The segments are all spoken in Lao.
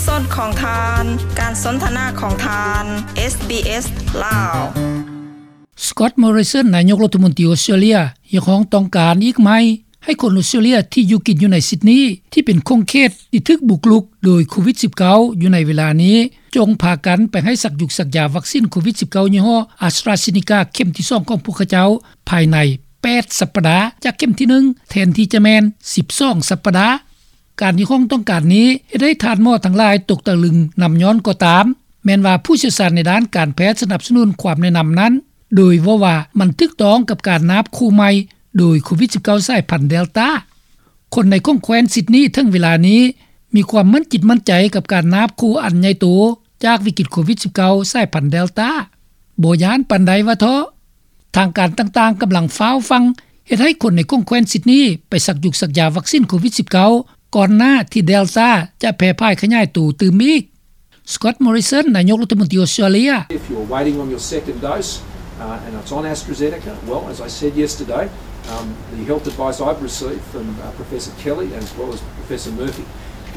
ສອນຂອງທ່ານ ການສົນທະນາຂອງທ່ານ ເອສບີເອສ ລາວ. ສະກອດ ມໍຣິສັນ ນາຍົກລັດຖະມົນຕີອົດສະຕຣາເລຍ ຮຽກຮ້ອງຕ້ອງການອີກໃໝ່ ໃຫ້ຄົນອົດສະຕຣາເລຍທີ່ຢູ່ກິນຢູ່ໃນຊິດນີ ທີ່ເປັນຂົງເຂດທີ່ຖືກບຸກລຸກໂດຍໂຄວິດສິບເກົ້າ ຢູ່ໃນເວລານີ້ ຈົ່ງພາກັນໄປໃຫ້ສັກຢຸກສັກຢາວັກຊິນໂຄວິດສິບເກົ້າ ຍີ່ຫໍ້ ອາສຕຣາເຊນີກາ ເຂັມທີສອງຂອງພວກເຂົາເຈົ້າ ພາຍໃນແປດສັບປະດາຈາກເຂັມທີໜຶ່ງ ແທນທີ່ຈະແມ່ນສິບສອງສັບປະດາ. ການຮຽກຮ້ອງຕ້ອງການນີ້ ເຮັດໃຫ້ທ່ານໝໍທັງຫຼາຍຕົກຕະລຶງນຳຍ້ອນກໍຕາມ ແມ່ນວ່າຜູ້ຊ່ຽວຊານໃນດ້ານການແພດສະໜັບສະໜູນຄວາມແນະນຳນັ້ນ ໂດຍເວົ້າວ່າມັນຖືກຕ້ອງກັບການນາບຄູ່ໃໝ່ໂດຍໂຄວິດສິບເກົ້າ ສາຍພັນເດລຕາ. ຄົນໃນຂົງແຄວ້ນຊິດນີເຖິງເວລານີ້ ມີຄວາມໝັ້ນຈິດໝັ້ນໃຈກັບການນາບຄູ່ອັນໃຫຍ່ໂຕຈາກວິກິດໂຄວິດສິບເກົ້າ ສາຍພັນເດລຕາ ບໍ່ຢ້ານປານໃດວ່າເທາະ. ທາງການຕ່າງໆກຳລັງຟ້າວຟັ່ງເຮັດໃຫ້ຄົນໃນຂົງແຄວ້ນຊິດນີໄປສັກຢຸກສັກຢາວັກຊິນໂຄວິດສິບເກົ້າ ກ່ອນໜ້າທີ່ເດລຕາຈະແຜ່ຜາຍຂະຫຍາຍໂຕຕື່ມອີກ. ສະກອດ ມໍຣິສັນ ນາຍົກລັດຖະມົນຕີອົດສະຕຣາເລຍ. If you're waiting on your second dose, uh, and it's on AstraZeneca, well, as I said yesterday, um, the health advice I've received from, uh, Professor Kelly as well as Professor Murphy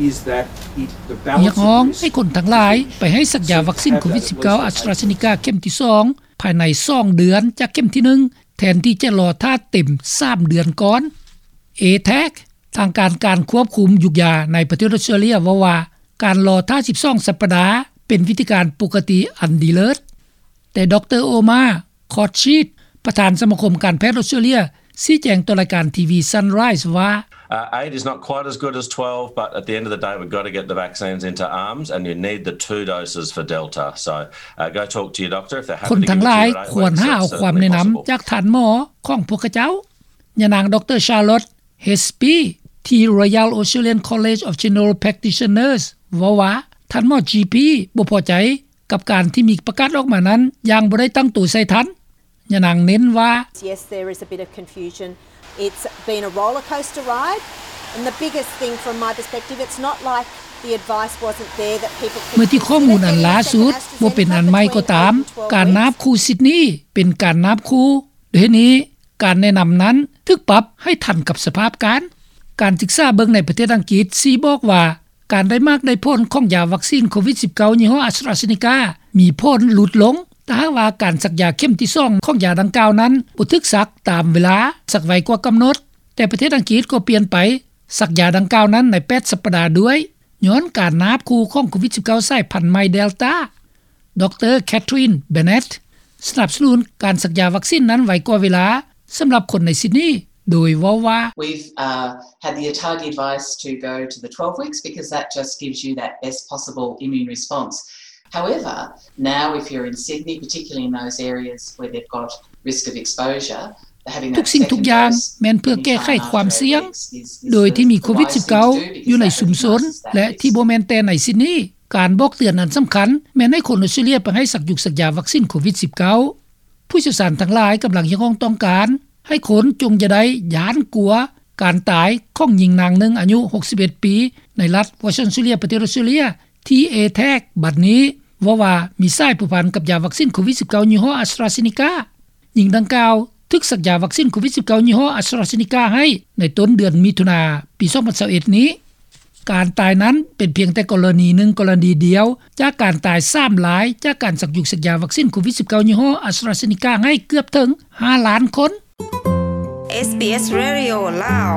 is that it, the balance of risk is that you should have that first dose. ຮຽກຮ້ອງໃຫ້ຄົນທັງຫຼາຍໄປໃຫ້ສັກຢາວັກຊິນໂຄວິດສິບເກົ້າ ອາສຕຣາເຊນີກາ ເຂັມທີສອງ ພາຍໃນສອງເດືອນຈາກເຂັມທີໜຶ່ງ ແທນທີ່ຈະລໍຖ້າເຕັມສາມເດືອນກ່ອນ. ເອແທັກ ທາງການການຄວບຄຸມຢຸກຢາໃນປະເທດອົດສະຕຣາເລຍເວົ້າວ່າ ການລໍຖ້າສິບສອງສັບປະດາ ເປັນວິທີການປົກກະຕິອັນດີເລີດ. ແຕ່ ດຣ. ໂອມາ ຄອດຊີດ ປະທານສະມາຄົມການແພດອົດສະຕຣາເລຍ ຊີ້ແຈງຕໍ່ລາຍການທີວີ Sunrise ວ່າ Uh, eight is not quite as good as twelve, but at the end of the day, we've got to get the vaccines into arms, and you need the two doses for Delta. So, uh, go talk to your doctor if they're happy to give it to you at eight. ຄົນທັງຫຼາຍຄວນຫາເອົາຄວາມແນະນຳຈາກທ່ານໝໍຂອງພວກເຂົາເຈົ້າ. ຍານາງ ດຣ. ຊາລອດ ເຮສປີ ທີ່ Royal Australian College of General Practitioners ເວົ້າວ່າ ທ່ານໝໍ ຈີ ພີ ບໍ່ພໍໃຈ ກັບການທີ່ມີປະກາດອອກມານັ້ນຢ່າງບໍ່ໄດ້ຕັ້ງໂຕໃສ່ທັນ. ຍານາງເນັ້ນວ່າ Yes, there is a bit of confusion. It's been a roller coaster ride, and the biggest thing from my perspective, it's not like the advice wasn't there that people could consider getting a second AstraZeneca between eight and twelve weeks. ເມື່ອທີ່ຂໍ້ມູນອັນລ່າສຸດບໍ່ເປັນອັນໃໝ່ກໍຕາມ, ການນາບຄູ່ຊິດນີເປັນການນາບຄູ່. ດ້ວຍເຫດນີ້, ການແນະນຳນັ້ນຖືກປັບໃຫ້ທັນກັບສະພາບການ. ການສຶກສາເບິ່ງໃນປະເທດອັງກິດຊີ້ບອກວ່າ ການໄດ້ໝາກໄດ້ຜົນຂອງຢາວັກຊິນໂຄວິດສິບເກົ້າ ຍີ່ຫໍ້ ອາສຕຣາເຊນີກາ ມີຜົນຫຼຸດລົງ ຖ້າຫາກວ່າການສັກຢາເຂັມທີສອງຂອງຢາດັ່ງກ່າວນັ້ນບໍ່ຖືກສັກຕາມເວລາ, ສັກໄວກວ່າກຳນົດ. ແຕ່ປະເທດອັງກິດກໍປ່ຽນໄປສັກຢາດັ່ງກ່າວນັ້ນໃນແປດສັບປະດາດ້ວຍ, ຍ້ອນການນາບຄູ່ຂອງໂຄວິດສິບເກົ້າ ສາຍພັນໃໝ່ເດລຕາ. ດຣ. ແຄທຣິນ ເບເນັດ ສະໜັບສະໜູນການສັກຢາວັກຊິນນັ້ນໄວກວ່າເວລາ ສຳລັບຄົນໃນຊິດນີ ໂດຍເວົ້າວ່າ We've, uh, had the ATAG advice to go to the twelve weeks because that just gives you that best possible immune response. However, now if you're in Sydney, particularly in those areas where they've got risk of exposure, having that second dose in your time after eight weeks is, is the right thing to do. ທຸກສິ່ງທຸກຢ່າງແມ່ນເພື່ອແກ້ໄຂຄວາມສ່ຽງ ໂດຍທີ່ມີໂຄວິດສິບເກົ້າ ຢູ່ໃນຊຸມຊົນ ແລະ ທີ່ບໍ່ແມ່ນແຕ່ໃນຊິດນີ. ການບອກເຕືອນອັນສຳຄັນແມ່ນໃຫ້ຄົນອົດສະຕຣາເລຍໄປໃຫ້ສັກຢຸກສັກຢາວັກຊິນໂຄວິດສິບເກົ້າ. ຜູ້ຊ່ຽວຊານທັງຫຼາຍກຳລັງຮຽກຮ້ອງຕ້ອງການໃຫ້ຄົນຈົ່ງຢ່າໄດ້ຢ້ານກົວການຕາຍຂອງຍິງນາງໜຶ່ງອາຍຸຫົກສິບເອັດປີ ໃນລັດວອສຕອນ ອອສເຕຣເລຍ ປະເທດອອສເຕຣເລຍ ທີ່ ເອແທັກ ບັດນີ້ເວົ້າວ່າມີສາຍພົວພັນກັບຢາວັກຊິນໂຄວິດສິບເກົ້າ ຍີ່ຫໍ້ ອາສຕຣາເຊນີກາ. ຍິງດັ່ງກ່າວຖືກສັກຢາວັກຊິນໂຄວິດສິບເກົ້າ ຍີ່ຫໍ້ ອາສຕຣາເຊນີກາ ໃຫ້ໃນຕົ້ນເດືອນມິຖຸນາ ປີສອງພັນຊາວເອັດນີ້. ການຕາຍນັ້ນເປັນພຽງແຕ່ກໍລະນີໜຶ່ງກໍລະນີດຽວ ຈາກການຕາຍສາມລາຍ ຈາກການສັກຢຸກສັກຢາວັກຊິນໂຄວິດສິບເກົ້າ ຍີ່ຫໍ້ ອາສຕຣາເຊນີກາ ໃຫ້ເກືອບເຖິງຫ້າລ້ານຄົນ. ເອສບີເອສ ເຣດິໂອ ລາວ.